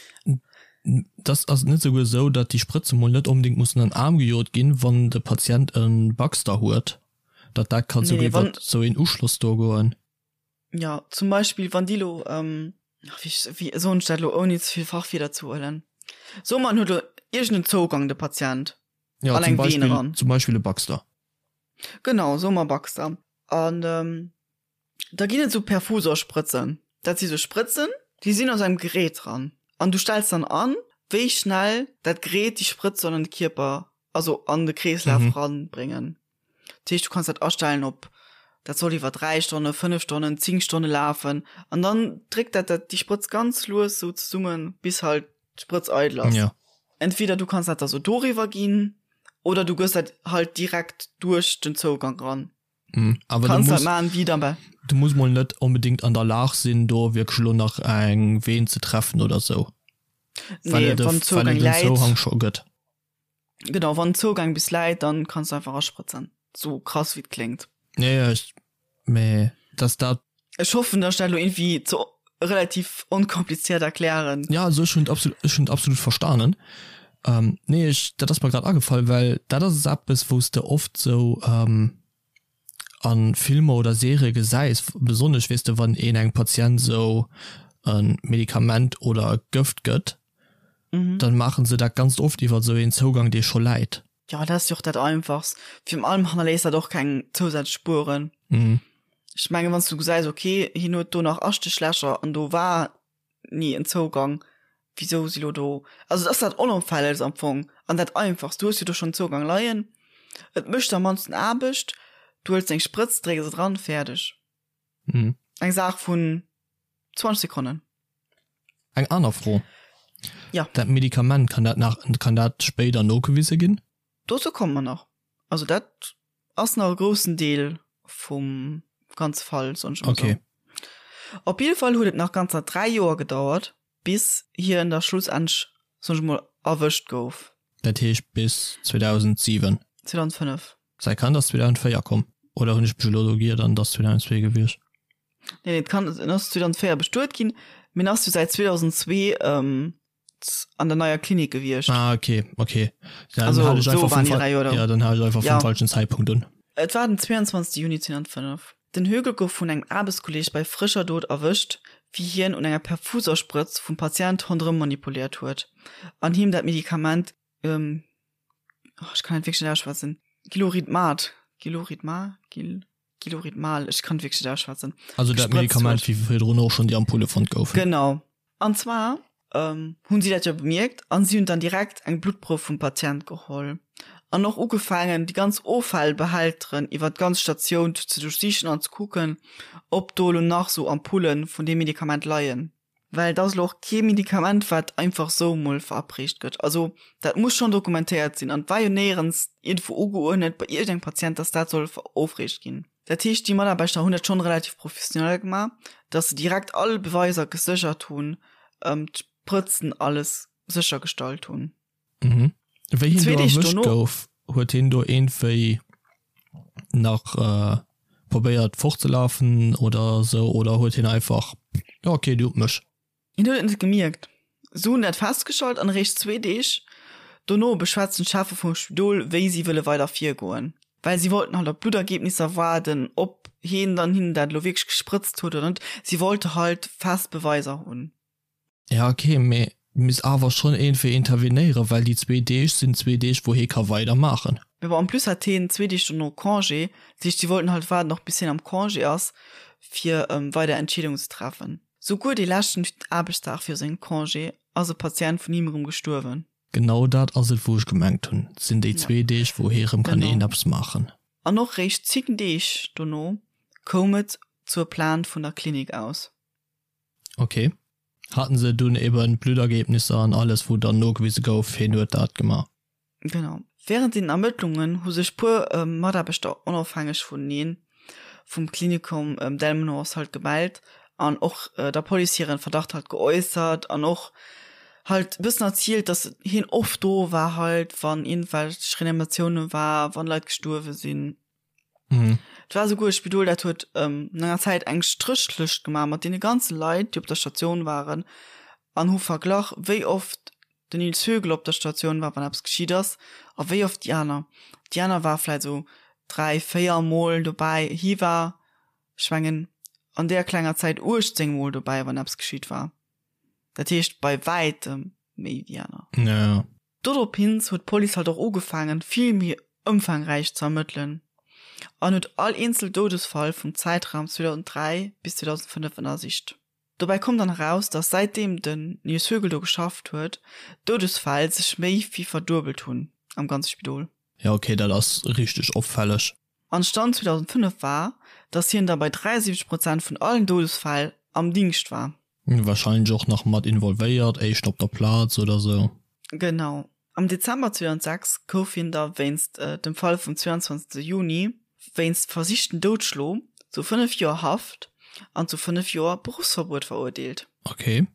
das ass net souguer esou, datt déi Sprëtze mol net onbedéngt mussen an den Aarm gejot ginn, wann de Patient e Baxter huet, datt dat kann Nee, souguer nee, wann. iwwert esou een Uschloss do goen. Ja, zum Beispill wann déi lo, ähm, ach, wéi, wéi soen ech dat lo ouni ze vill Fachwierder ze huelen? Soe mer en huet lo iergend en Zougang, de Patient, Ja, an zum eng Vene Beispill, ran. zum Beispill e Baxter. Genau, soe mer Baxter. An ähm, da ginn et esou Perfusorsprëtzen. Dat si sou Sprëtzen, déi sinn aus engem Gerät dran. An du stells dann an, wéi schnell dat Gerät déi Sprëtz soll an de Kierper, also an de Kreeslaf Mhm. ranbréngen. Dat heescht, du kanns dat astellen op, dat soll iwwer 3 Stonnen, 5 Stonnen, 10 Stonne lafen. An dann dréckt dat dat déi Sprëtz ganz lues sou zesummen, bis halt d'Sprëtz eidel ass. Ja. Entweder du kanns dat da sou doriwwer ginn oder du gëss dat halt direkt duerch den Zougang ran. Mhm. Awer du Kanns dat muss, maachen, wéi dann bei. du muss mol net onbedéngt an der Lag sinn, do wierklech elo nach eng Veen ze treffen oder sou, well Nee, et e, wann well Zougang et en läit. Zouhang scho gëtt. Genau, wann den Zougang bis läit, dann kanns du einfach asprëtzen. Sou krass wéi et kléngt. Ja, ja, ech, mee dass dat. Ech hoffen, dass ech dat elo iergendwéi ze relativ onkompliziert erklären. Ja, also ech hunn et absolut, ech hunn et absolut verstanen. Ähm, nee, ech, dat ass mer grad agefall, well dat ass eppes, wou s de oft sou, ähm, a Filmer oder Serië gesäis, besonnesch weess de wann een engem Patient sou e Medikament oder e Gëft gëtt, dann maachen se dat ganz oft iwwer sou een Zougang dee scho läit. Jo, dat ass jo och dat einfachst. Virun allem hannerléisst dat och keng zousätzlech Spueren. Ech mengen, wann s du gesäis, okay, hien huet do nach Astéchlächer an do war ni en Zougang, wisou si lo do, also et ass dat Onopfällegst am Fong an dat Einfachst, du hues jo do schonn Zougang leien, et mécht am mannsten Aarbecht, du huels deng Sprëtz, drécks et eran, fäerdeg. Mhm. Eng Saach vun 20 Sekonnen. Eng aner Fro. Ja. Dat Medikament, kann dat nach, kann dat spéider nogewise ginn? Dozou komme mer nach. Also dat ass nach e groussen Deel vum ganze Fall, soen ech emol Okay. sou. Op jidde Fall huet et nach ganzer 3 Joer gedauert, bis hien da schlussendlech, soen ech emol, erwëscht gouf. Dat heescht bis 2007. 2005. Säi Kand ass 2004 komm. Oder hunn ech mech elo do giert an et ass 2002 gewiescht? Nee, nee, d'Kand en ass 2004 bestuet ginn, mee en ass jo säit 2002 an der neier Klinik gewiescht. Ah, okay, okay. Dann also, hat ech einfach so vum, ja, ja, dann hat ech einfach ja. vum falschen Zeitpunkt un. Et war den 22. Juni 2005. Den Högel gouf vun engem Aarbechtskolleeg bei frëscher Dot erwëscht, wéi hien un enger Perfusersprëtz vum Patient ronderëm manipuléiert huet an him dat Medikament ähm, oh, ech kann et wierklech net ausschwätzen, Giloridmat, Giloridma, Gil, Giloridmal, ech kann et wierklech net ausschwätzen. Also dat Medikament, wéi virdrun och schonn déi Ampulle fonnt goufen. Genau. An zwar ähm, hunn si dat jo bemierkt an si hunn dann direkt eng Bluttprouf vum Patient geholl an och ugefaangen, déi ganz Offallbehälteren iwwer d'ganz Statioun ze duerchsichen an ze kucken, ob do elo nach sou Ampullen vun deem Medikament leien. Well et ass elo och kee Medikament, wat einfach sou emol verabreecht gëtt. Also dat muss schonn dokumentéiert sinn. An et war jo néierens iergendwou ugeuerdnet bei iergendengem Patient, dass dat soll verofreecht ginn. Dat heescht, déi Mataarbechter hunn dat schonn relativ professionell gemaach, dass se direkt all Beweiser geséchert hunn, d'Sprëtzen, alles séchergestallt hunn. Mhm. Wéi hien do erwëscht gouf, huet hien do iergendwéi nach probéiert fortzelafen oder sou oder huet hien einfach, jo okay, dir hutt mech. Hien huet et net gemierkt. Se hunn dat festgestallt an eréischt zwee Deeg dono beschwätzen d'Cheffe vum Spidol, wéi si wëlle weider virgoen. Well si wollten halt op d'Bluttergebnisser waarden, ob hien dann hinnen dat elo wierklech gesprëtzt huet oder net. Si wollte halt fest Beweiser hunn. Ja ok, mee misst awer schonn iergendwéi intervenéieren, well déi zwee Deeg sinn zwee Deeg wou hee ka weider maachen. Mee bon, en plus hat heen zwee Deeg dono Congé, dat heescht si wollten halt waarden och bis hien am Congé ass fir weider Entscheedungen ze treffen. Souguer dee leschten Aarbechtsdag viru sengem Congé ass e Patient vun him erëm gestuerwen. Genau dat ass et wou ech gemengt hunn, et sinn déi zwee Deeg wou hee rëm kann een eppes maachen. An och réischt 10 Deeg dono koum et zur Plainte vun der Klinik aus. Ok. Haten se dunn eben d'Bluttergebnisser an alles wou dann nogewise gouf heen huet dat gemaach? Genau. Während den Ermëttlungen hu sech puer Mataarbechter onofhängeg vuneneen vum Klinikum Delmenhorst halt gemellt an och der Police hiren Verdacht halt geäussert an och halt e bëssen erzielt, dass hien oft do war halt wann iergendwelch Reanimatioune war, wann Leit gestuerwe sinn. Mhm. Et war souguer e Spidol, dat huet ähm, no enger Zäit eng Stréchlëscht gemaach mat deene ganze Leit, déi op der Statioun waren an hu verglach, wéi oft den Nils Högel op der Statioun war, wann eppes geschitt ass, a wéi oft déi aner. Déi aner war vläicht esou dräi, véier Mol dobäi. Hie war, ech mengen, an deeër klenger Zäit 18 Mol dobäi, wann eppes geschitt war. Dat heescht bei wäitem méi wéi déi aner. Ja, ja. Doropins huet d'Police halt och ugefaangen, vill méi ëmfaangräich ze ermëttelen an huet all eenzel Doudesfall vum Zäitraum 2003 bis 2005 ënnersicht. Dobäi koum dann eraus, datt säitdeem den Nils Högel do geschafft huet, d'Doudesfäll sech méi wéi verduebelt hunn am ganze Spidol. Jo ok, dat ass richteg opfälleg. An Stand 2005 war, datt hien da bei 73 Prozent vun allen Doudesfäll am Dingscht war. Wahrscheinlech och nach mat involvéiert, éischt op der Plaz oder sou. Genau. Am Dezember 2006 gouf hien da wéinst dem Fall vum 22 Juni wéinst versichten Doudschlo zu 5 Joer Haft an zu 5 Joer Beruffsverbuet verurteelt. Ok,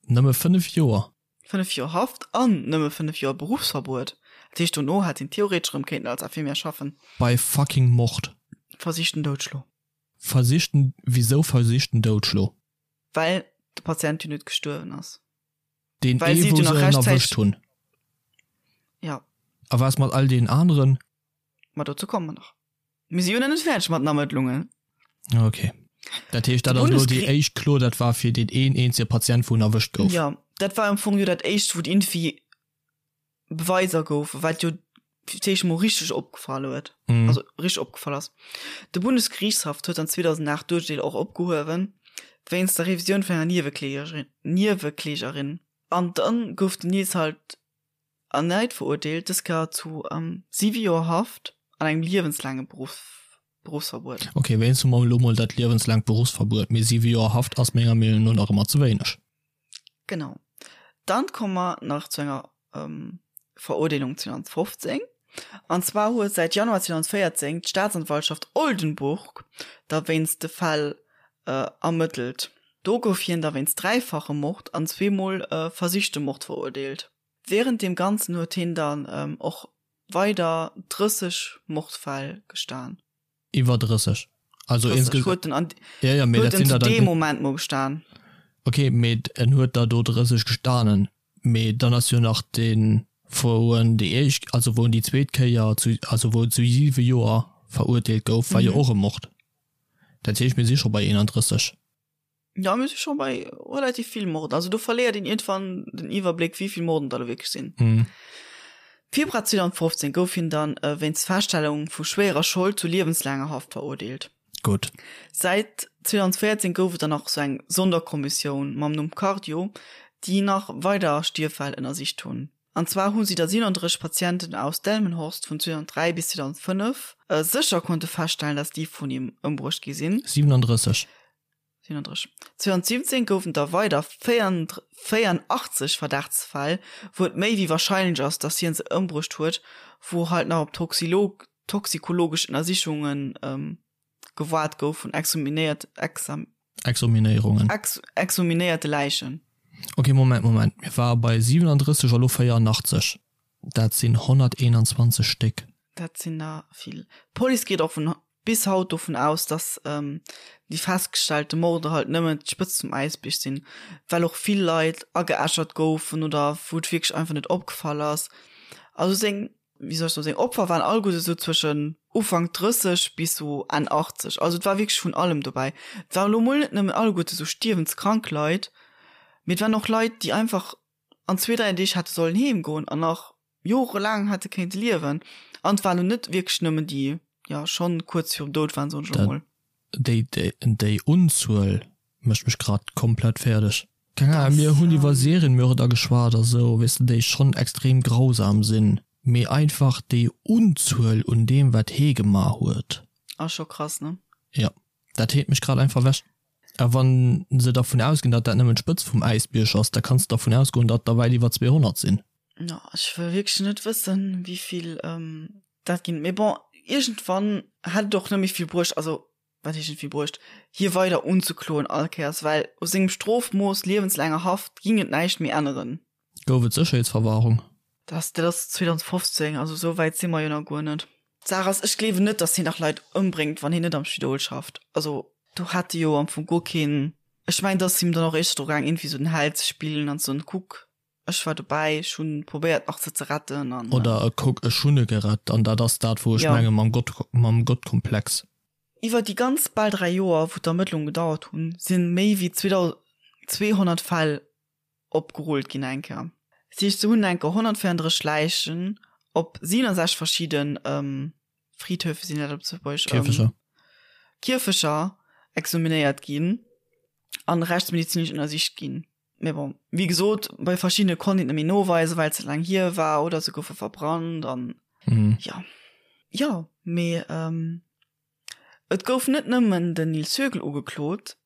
nëmme 5 Joer? 5 Joer Haft an nëmme 5 Joer Beruffsverbuet. Dat heescht, dono hätt hien theoretesch erëm kéinten als Infirmière schaffen. Bei fucking Mord. Versichten Doudschlo. Versichten, wisou versichten Doudschlo? Well de Patient jo net gestuerwen ass. Deen ee wou se en erwëscht hunn. Ja. A wat ass mat all deenen aneren? Ma dozou komme mer nach. Mir si jo nach net fäerdeg mat den Ermëttlungen. Ok. Dat heescht, dat ass elo déi éischt Klo, dat war fir deen een eenzege Patient, wou en erwëscht gouf. Jo, dat war am Fong jo dat éischt, wou d'Infi Beweiser goufen, wat jo fir d'éischt mol richteg opgefall huet, mm. also richteg opgefall ass. De Bundesgerichtshaff huet dann 2008 d'Urteel och opgehuewen, wéinst der Revisioun vun enger Nieweklägerin. Nieweklägerin. An dann gouf den Nils halt erneit verurteelt, dës Kéier zu ähm, siwe Joer Haft an engem liewenslaange Beruff Beruffsverbuet. Ok, wéinst hu mer elo mol dat liewenslaangt Beruffsverbuet, mee siwe Joer Haft ass menger Meenung no nach ëmmer ze wéineg. Genau. Dann komme mer nach zu enger Verurteelung 2015. An zwar huet säit Januar 2014 d'Staatsanwaltschaft Oldenburg da wéinst de Fäll ermëttelt. Do gouf hien da wéinst dräifachem Mord an zweemol versichtem Mord verurteelt. Wärend deem Ganzen huet hien dann och. weider 30 Mordfäll gestan. Iwwer 30. Also 30 huet en an ja, ja, mee dat sinn der dann. Deem Moment mol gestan. Ok, mee en huet der do 30 gestanen, mee dann ass jo nach deen, wou en déi éischt, also wou en déi zweet Kéier zu, also wou en zu 7 Joer verurteelt gouf, war jo och e Mord. Dat heescht, mir si scho bei 31. Jo, mir si scho bei relativ vill Morden. Also do verléiert een iergendwann den Iwwerbléck, wéi vill Morden dat elo wierklech sinn. Mhm. Februar 2015 gouf hien dann wéinst Feststellung vu schwéierer Schold zu liewenslaanger Haft verurteelt. Gutt. Säit 2014 gouf et dann nach sou eng Sonderkommissioun mam Numm Cardio, déi nach weider Stierffäll ënnersicht hunn. An zwar hu si der 37 Patienten aus Delmenhorst vun 2003 bis 2005 sécher konnte feststellen, dass déi vun him ëmbruecht gi sinn. 37. 37. 2017 goufen der weider 84 Verdachtsfäll, wou et méi wéi warscheinlech ass, dass hien se ëmbruecht huet, wou halt nach op toxikologesch Ënnersichunge gewaart gouf vun exhuminéiert, exam. Exhuminéierungen. Ex, exhuminéierte Läichen. Ok, Moment, Moment, mir ware bei 37 a lo 84. Dat sinn 121 Stéck. Dat sinn der vill. D'Police geet och vun bis haut dovun aus, dass déi festgestellte Morde halt nëmmen d'Spëtzt vum Äisbierg sinn, well och vill Leit ageäschert goufen oder wou et wierklech einfach net opgefall ass. Also seng, wéi soll ech soen, seng Opfer waren alleguerte sou zwëschen Ufank 30 bis sou Enn 80. Also et war wierklech vun allem dobäi. Et waren elo mol net nëmmen alleguerte sou stierwenskrank Leit, mee et waren och Leit, déi einfach an zwee, dräi Deeg hätte sollen heem goen an nach jorelaang hätte kéinte liewen. An et waren elo net wierklech nëmmen déi, jo, schonn kuerz virum Doud waren, soen ech elo mol. Déi, déi Unzuel mécht mech grad komplett fäerdeg. Keng Ahnung, mir hunn iwwer Serienmörder geschwat a sou, weess de, déi schonn extrem grausam sinn, mee einfach déi Unzuel un deem, wat hee gemaach huet. Ass scho krass, ne? Jo, dat heet mech grad einfach ewech. A wann se dervun ausginn, datt dat nëmmen d'Spëtz vum Äisbierg ass, da kanns de dervun ausgoen, datt der wäit iwwer 200 sinn. Jo, ech wëll wierklech net wëssen, wéi vill dat ginn. Mee bon, iergendwann hätt et och net méi vill bruecht, also wat heescht net vill bruecht, hie weider unzekloen all Kéiers, well u sengem Strofmooss, liewenslaanger Haft, ging et näischt méi änneren. Gouf et Sécherheetsverwahrung? Dat dat ass 2015, also esou wäit si mer jo nach guer net. D'Saach ass, ech gleewen net, datt hien nach Leit ëmbréngt, wann hien net am Spidol schafft. Also do hätt e jo am Fong guer keen, ech mengen, et ass him dann och éischter dru gaang, iergendwéi esou den Held ze spillen an ze soen, kuck, ech war dobäi, ech hunn probéiert nach se ze retten an. Oder kuck, ech hunn e gerett. An dat ass dat, wou ech menge mam Gott, mam Gottkomplex. Iwwer déi ganz bal 3 Joer, wou d'Ermëttlunge gedauert hunn, si méi wéi 2.200 Fäll opgerullt ginn eng Kéier. Dat heescht, se hunn eng Kéier 134 Läichen op 67 verschidde Friedhöfe, sinn dat op Lëtzebuergesch? Kierfecher. Kierfecher examinéiert ginn an rechtsmedizinesch ënnersicht ginn. Mee bon, wéi gesot, bei verschiddene konnt een et net méi noweisen, well et ze laang hier war oder se goufe verbrannt an jo. Jo, mee et gouf net nëmmen den Nils Högel ugeklot,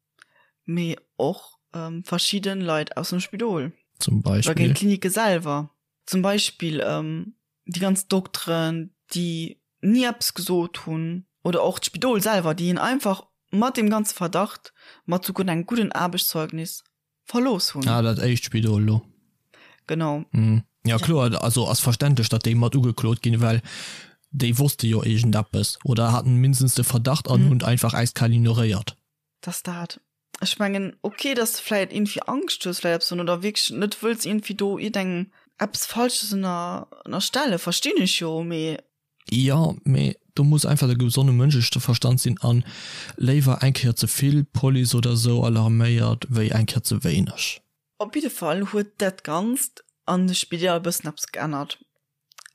mee och verschidde Leit aus dem Spidol. Zum Beispill? Oder géint d'Klinike selwer. Zum Beispill déi ganz Dokteren, déi ni eppes gesot hunn, oder och d'Spidol selwer, déi hien einfach mat deem ganze Verdacht, mat souguer engem gudden Aarbechtszeugnis verlooss hunn. Ah, dat éischt Spidol elo. Genau. Jo, kloer, also ass verständlech, datt déi mat ugeklot ginn, well déi wosste jo iergendeppes oder haten mindestens de Verdacht an hunn et einfach äiskal ignoréiert. Dass dat, ech mengen, ok, dass de vläit iergendwéi Angscht hues, vläit eppes oder wierklech net wëlls iergendwéi do iergendengem eppes Falsches ënner, ënnerstellen, verstinn ech jo, mee. Jo, mee do muss einfach de gesonne Mënscheverstand sinn an léiwer eng Kéier ze vill Police oder sou alarméiert wéi eng Kéier ze wéineg. Op jidde Fall huet dat Ganzt an de Spideeler e bëssen eppes geännert.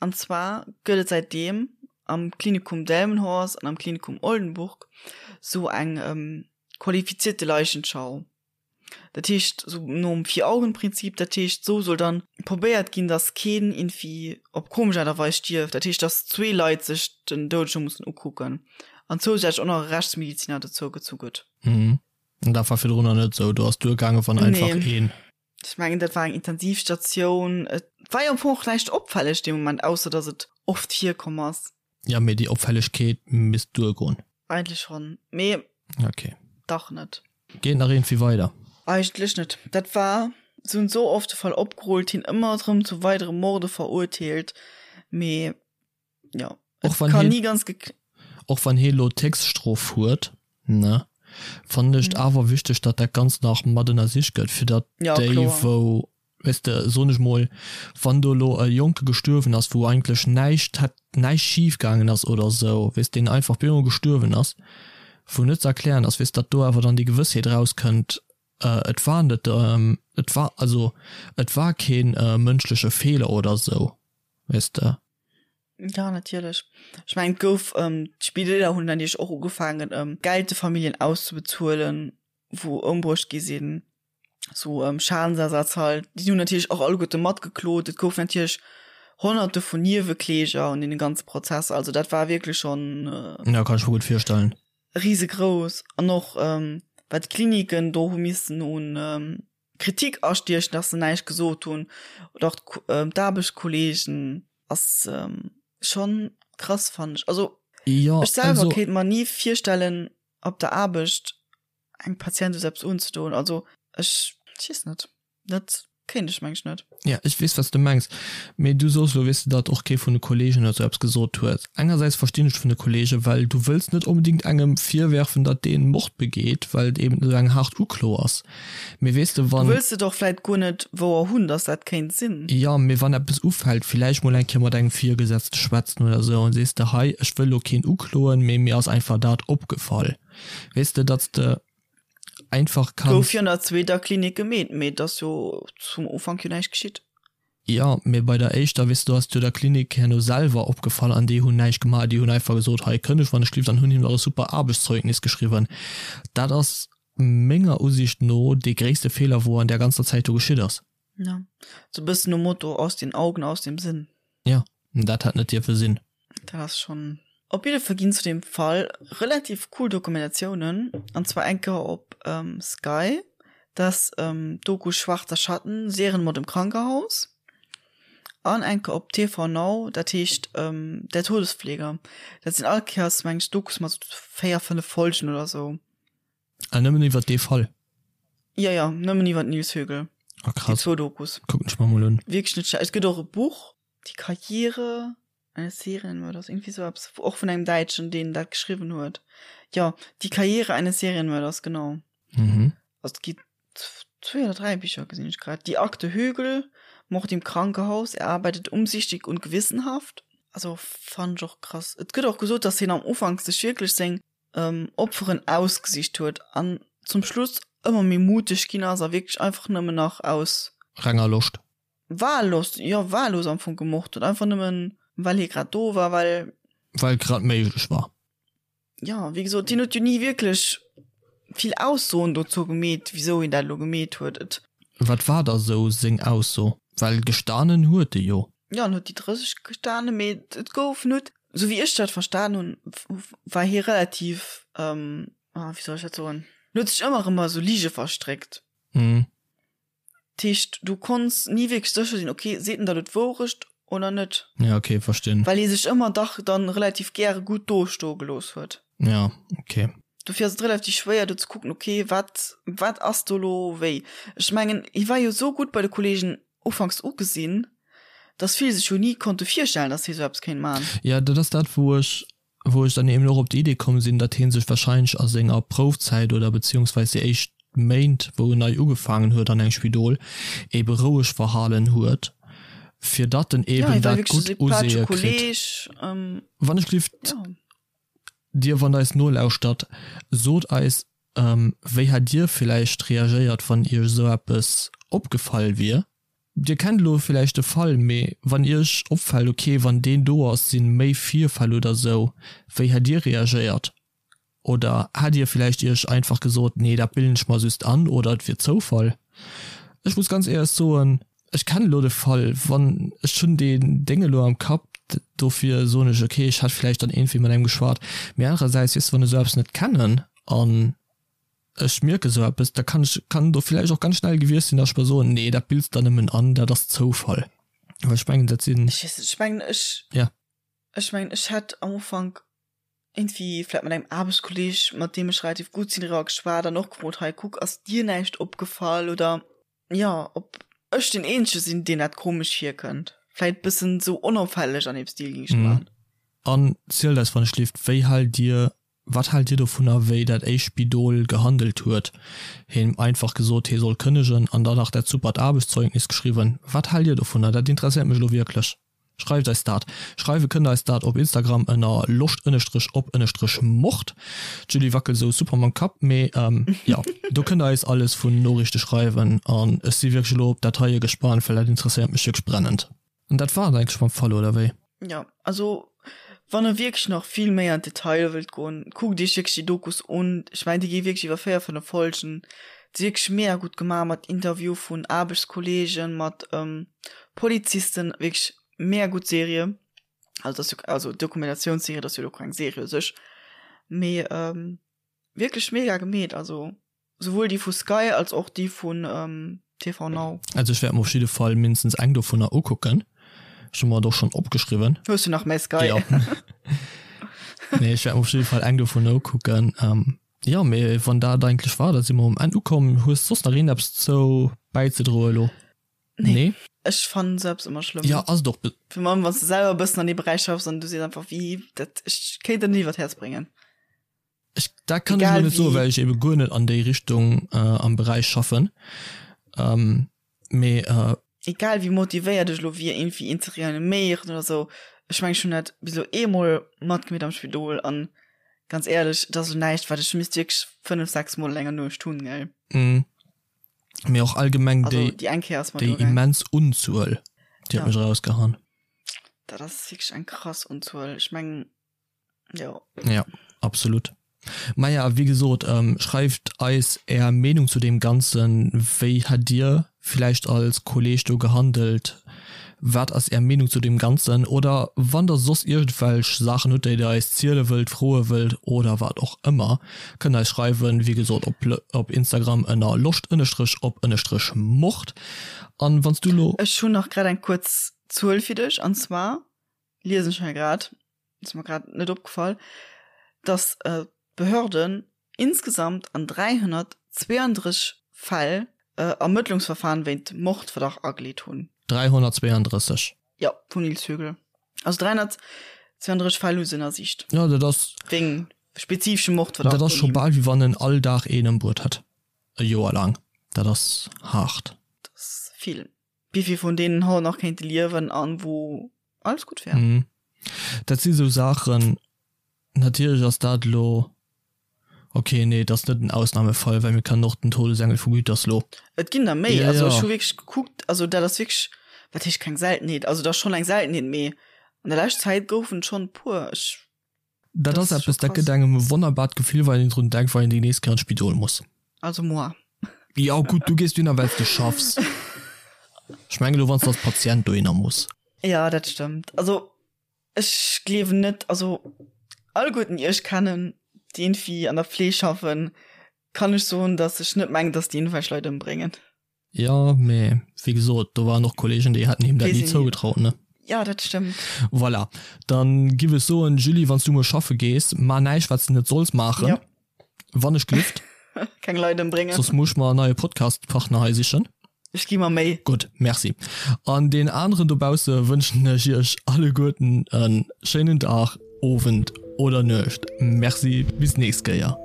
An zwar gëtt et säitdeem am Klinikum Delmenhorst an am Klinikum Oldenburg sou eng qualifizierte Leichenschau. Dat heescht sou nom Vier-Augen-Prinzip, dat heescht sou soll dann probéiert ginn, datt keen iergendwéi op komesch Aart a Weis stierft. Dat heescht, datt zwee Leit sech den Doudege mussen ukucken an zousätzlech och nach e Rechtsmediziner dozou gezu gëtt. Mhm. An dat war virdrunner net sou, do ass duergaangen, wann einfach een. Nee. Ech mengen, dat war eng Intensivstatioun. Et war jo am Fong och näischt opfälleg dee Moment, ausser datt et oft virkomm ass. Ja, mee déi Opfällegkeet misst duergoen. Eigentlech schonn, mee Okay. dach net. Geet nach iergendwéi weider? Eigentlech net. Dat war, se hunn esou oft de Fall opgerullt, hien ëmmer erëm zu weidere Morde verurteelt, mee. Ja. Och wann kann hie, nie ganz och wann hie lo d'Héchststrof huet, ne, fannen ech et mhm. awer wichteg, datt dat Ganzt nach mat ënnersicht gëtt, fir datt ja, déi, kloer. wou, weess de, soen ech mol, wann do elo e Jonke gestuerwen ass, wou eigentlech näischt hätt, näischt schif gaangen ass oder esou, weess, deen einfach op eemol gestuerwen ass, wou net ze erklären ass, weess, datt do awer dann déi Gewëssheet erauskënnt, et war net, et war, also et war kee mënschleche Feeler oder esou, weess de. Ja, natierlech. Ech mengen, et gouf, d'Spideeler hunn natierlech och ugefaangen, Geld de Familljen auszebezuelen, wou ëmbruecht gi sinn, sou Schadensersatz halt. Déi hunn natierlech och alleguerte matgeklot. Et gouf natierlech Honnerte vun Niewekläger an deene ganze Prozesser. Also dat war wierklech schonn. Ja, kann ech mer gutt virstellen. Risegrouss. An och wat d'Kliniken do hu missen un Kritik astiechen, dass se näischt gesot hunn, oder och d'Aarbechtskolleegen, ass schonn krass, fannen ech. Also Jo, ech selwer also. kéint mer ni virstellen, op der Aarbecht engem Patient esou eppes unzedoen. Also ech, ech weess net, dat kéint ech meng ech net. Ja, ech weess, wat s de mengs. Mee du soos elo, weess de, datt och kee vun de Kolleegen oder sou eppes gesot huet. Engersäits verstinn ech vun de Kolleegen, well du wëlls net onbedéngt engem virwerfen, datt deen Mord begeet, well et eben esou eng haart Uklo ass. Mee weess de, Du wann. wëlls et och vläit guer net wouer hunn, datt dat kéint sinn. Jo, mee wann eppes ufält, villäicht mol eng Kéier mat engem Virgesetzte schwätzen oder sou an sees de, hei, ech wëll elo keen ukloen, mee mir ass einfach dat opgefall. Weess de, datt s de einfach Gouf kanns. jo an der zweeter Klinik gemeet, mee et ass jo zum Ufank jo näischt geschitt. Jo, mee bei der éischter, weess de, do ass et jo der Klinik herno selwer opgefall an déi hunn näischt gemaach. Déi hunn einfach gesot, hei kënneg wann ech lift an hunn him nach e super Aarbechtszeugnis geschriwwen. Dat ass menger Usiicht no dee gréisste Feeler, wou an där ganzer Zäit do geschitt ass. Jo, sou e bëssen nom Motto aus den Augen, aus dem Sinn. Jo, dat hätt net dierfe sinn. Dat ass schonn. Op jidde Fall ginn zu deem Fall relativ cool Dokumentatiounen, an zwar eng Kéier op Sky, dat ass d'Doku Schwarzer Schatten, Serienmord im Krankenhaus, an eng Kéier op TV Now, dat heescht Der Todespfleger. Dat sinn all Kéiers, meng ech, Dokus mat sou 4, 5 Folgen oder sou. Ah, nëmmen iwwer dee Fall? Jo, jo, nëmmen iwwer den Nils Högel. Ah, Déi krass. zwou Dokus. Kucken ech mer mol un. Wierklech net schlecht. Et gëtt och e Buch, Die Karriere eines Serienmörders, irgendwie sou eppes, och vun engem Däitschen, deen dat geschriwwen huet. Jo, Die Karriere eines Serienmörders, genau. Mhm. Also et gi zwee oder dräi Bicher, gesinn ech grad. Die Akte Högel, Mord im Krankenhaus, er arbeitet umsichtig und gewissenhaft. Also fannen ech och krass. Et gëtt och gesot, dass hien am Ufank sech wierklech seng Opferen ausgesicht huet an zum Schluss ëmmer méi muteg ginn ass a wierklech einfach nëmmen nach aus. Renger Loscht. Wahllust, jo wahllos am Fong gemort huet, einfach nëmmen well hie grad do war, well. Well grad méiglech war. Jo, wéi gesot, hien huet jo ni wierklech vill Aussoen dozou gemeet, wisou hien dat elo gemeet huet. Et. Wat war da sou seng Ausso? Well gestanen huet e jo. Jo, en huet déi 30 gestanen, mee et gouf net, sou wéi ech dat verstan hunn, war hie relativ, wéi soll ech dat soen, en huet sech ëmmer erëm a sou Lige verstréckt. Mhm. Dat heescht, du konns ni wierklech sécher sinn, ok, seet en der elo d'Wourecht oder net? Ja, ok, verstinn. Well hie sech ëmmer dach dann relativ gäre gutt dostoe gelooss huet. Ja, ok. Dofir ass et relativ schwéier do ze kucken, ok, wat, wat ass do elo wéi? Ech mengen, hie war jo esou gutt bei de Kollegen ufanks ugesinn, dass vill sech jo ni konnte virstellen, dass hie sou eppes kéint man. Ja, dat ass dat, wou ech wou ech dann eben och op déi Idee komm sinn, datt hie sech wahrscheinlech a senger Proufzäit oder beziehungsweis déi éischt Méint, wou en nei ugefaangen huet an engem Spidol, ebe roueg verhalen huet, fir datt en Ja, eben hie war dat wierklech e gutt sympathesche Useeë kritt. Kolleg. Wann ech gelift, Ja. Dir, wann Der eis nolauschtert, sot eis, wéi hätt Dir villäicht reagéiert, wann Iech esou eppes opgefall wier? Dir kennt elo villäicht de Fall, mee wann Iech opfällt, ok, wann deen do ass, sinn méi Virfäll oder sou, wéi hätt Dir reagéiert? Oder hätt Dir villäicht Iech einfach gesot, nee, dat bilden ech mer just an oder et wier Zoufall? Ech muss ganz éierlech soen, ech kennen elo de Fall, wann ech hunn deen Déng elo am Kapp, dofir soen ech, ok, ech hätt villäicht dann iergendwéi mat engem geschwat. Mee anerersäits, weess de, wann ech esou eppes net kennen an ech mierke sou eppes, da kann ech, kann do villäicht och ganz schnell gewiescht sinn, dass ech mer soen, nee, dat bills der nëmmen an, dat ass Zoufall. Well ech mengen, dat sinn. Ech weess net, ech mengen, ech, Ja. ech mengen, ech hätt am Ufank iergendwéi vläicht mat engem Aarbechtskolleg, mat deem ech relativ gutt sinn, driwwer geschwat an och gefrot, hei kuck, ass dir näischt opgefall oder, jo, ob ech deen Eenzege sinn, deen dat komesch virkënnt. Vläicht bëssen sou onopfälleg an deem Stil géing ech et maachen. An zielt eis wann ech lift, wéi haalt dir, wat haalt dir dovunner wéi dat éischt Spidol gehandelt huet, him einfach gesot hee soll kënnegen an dann nach dat supert Aarbechtszeugnis geschriwwen. Wat haalt dir dovunner? Dat interesséiert mech elo wierklech. Schreift eis dat. Schreiwe kënnt der eis dat op Instagram ënner loscht ënnestrech op ënnestrech mord. D'Julie wackelt esou super mam Kapp, mee jo, do kënnt der eis alles vun Noriichte schreiwen an ech si wierklech elo op dat heie gespaant, well dat interesséiert mech wierklech brennend. An dat war et eigentlech mam Fall, oder wéi? Jo, also wann e wierklech nach vill méi an d'Detailer wëllt goen, kuckt iech wierklech déi Dokus un. Ech mengen, déi gi wierklech iwwer 4, 5 Folgen. Déi si wierklech mega gutt gemaach mat Interview vun Aarbechtskolleegen, mat Polizisten, wierklech mega gutt Serie. Also dat ass jo, also Dokumentatiounsserie, dat ass jo elo keng Serie u sech, mee wierklech mega gemeet, also. Souwuel déi vu Sky als och déi vun TV Now. Also ech wäert mer op jidde Fall mindestens eng dovunner ukucken. Ech hu mer et och schonn opgeschriwwen. Hues du nach mäi Sky? Jo. Nee, ech wäert mer op jidde Fall eng dovunner ukucken. Jo, mee wann dat eigentlech war, da si mer um Enn ukomm. Hues soss nach iergendeppes zou bäizedroe elo? Nee. Nee? Ech fannen esou eppes ëmmer schlëmm. Jo, ass et och. Virun allem wann s de selwer e bëssen an dee Beräich schaffs an du sees einfach, wéi dat, ech kéint dat net iwwer d'Häerz bréngen. Ech, dat kann ech elo net soen, well ech ebe guer net an déi Richtung am Beräich schaffen. Mee. Egal wéi motivéiert ech elo wier, iergendwéi een ze reaniméieren oder esou, ech mengen, ech hunn dat bis elo eemol matgemeet am Spidol an ganz éierlech, et ass elo näischt, wat ech misst wierklech 5, 6 Mol an enger Nuecht hunn, gell. Mee och allgemeng déi, déi immens Unzuel, déi huet mech erausgehaen. Dat ass wierklech eng krass Unzuel. Ech mengen. Jo. Ja, absolut. Maja, wéi gesot, ähm, schreift eis är Meenung zu deem Ganzen. Wéi hätt dir villäicht als Kolleg do gehandelt? Wat ass är Meenung zu deem Ganzen? Oder wann der soss iergendwelch Saachen hutt, déi der eis ziele wëllt, froe wëllt oder wat och ëmmer, kënnt eis schreiwen, wéi gesot op op Instagram ënner loscht ënnestrech op ënnestrech mord. An wann s du lo. Ech hunn nach grad eng kuerz Zuel fir dech, an zwar liesen ech hei grad, ass mer grad net opgefall, dass d'Behörden insgesamt an 332 Fäll Ermëttlungsverfahren wéint Mordverdacht ageleet hunn. 332? Jo, vum Nils Högel. Also 332 Fäll hu se ënnersicht. Jo, dat ass. Wéng spezifeschem Mordverdacht. Dat ass scho bal wéi wann en all Dag een ëmbruet hätt, e Joer laang. Dat ass haart. Dat ass vill. Wéivill vun deenen haut nach kéinte liewen an wou alles gutt wär. Mhm. Dat si sou Saachen, natierlech ass dat elo, ok, nee, et ass net en Ausnahmefall, well mir kennen och den Todesengel vu Gütersloh. Et ginn der méi, also ech hu wierklech gekuckt, also dat ass wierklech, wat heescht keng Seltenheet, also et ass schonn eng Seltenheet, mee an der lescht Zäit goufen et schonn e puer. Ech. Dat ass eppes, dat gëtt engem e wonnerbart Gefill, wann een drun denkt, wann een déi nächst Kéier an d'Spidol muss. Also moi. Jo gutt, du gees dohinner, well s de schaffs. Ech mengen elo, wann s de als Patient dohinner muss. Jo, dat stëmmt. Also ech gleewen net, also alleguerten, déi ech kennen, déi iergendwéi an der Fleeg schaffen, kann ech soen, datt ech net mengen, datt déi iergendwelch Leit ëmbréngen. Jo, mee wéi gesot, do waren och Kollegen, déi hätten him dat ni zougetraut, ne? Jo, dat stëmmt. Voilà, dann giff ech soen, Julie, wann s du muer schaffe gees, maach näischt, wat s de net solls maachen. Jo. Wann ech glift. Keng Leit ëmbréngen. Soss muss ech mer en neie Podcast-Partner hei sichen. Ech gi mer Méi. Gutt, merci. An deenen aneren dobausse wënschen ech iech alleguerten e schéinen Dag, Owend oder Nuecht. Merci, bis nächst Kéier.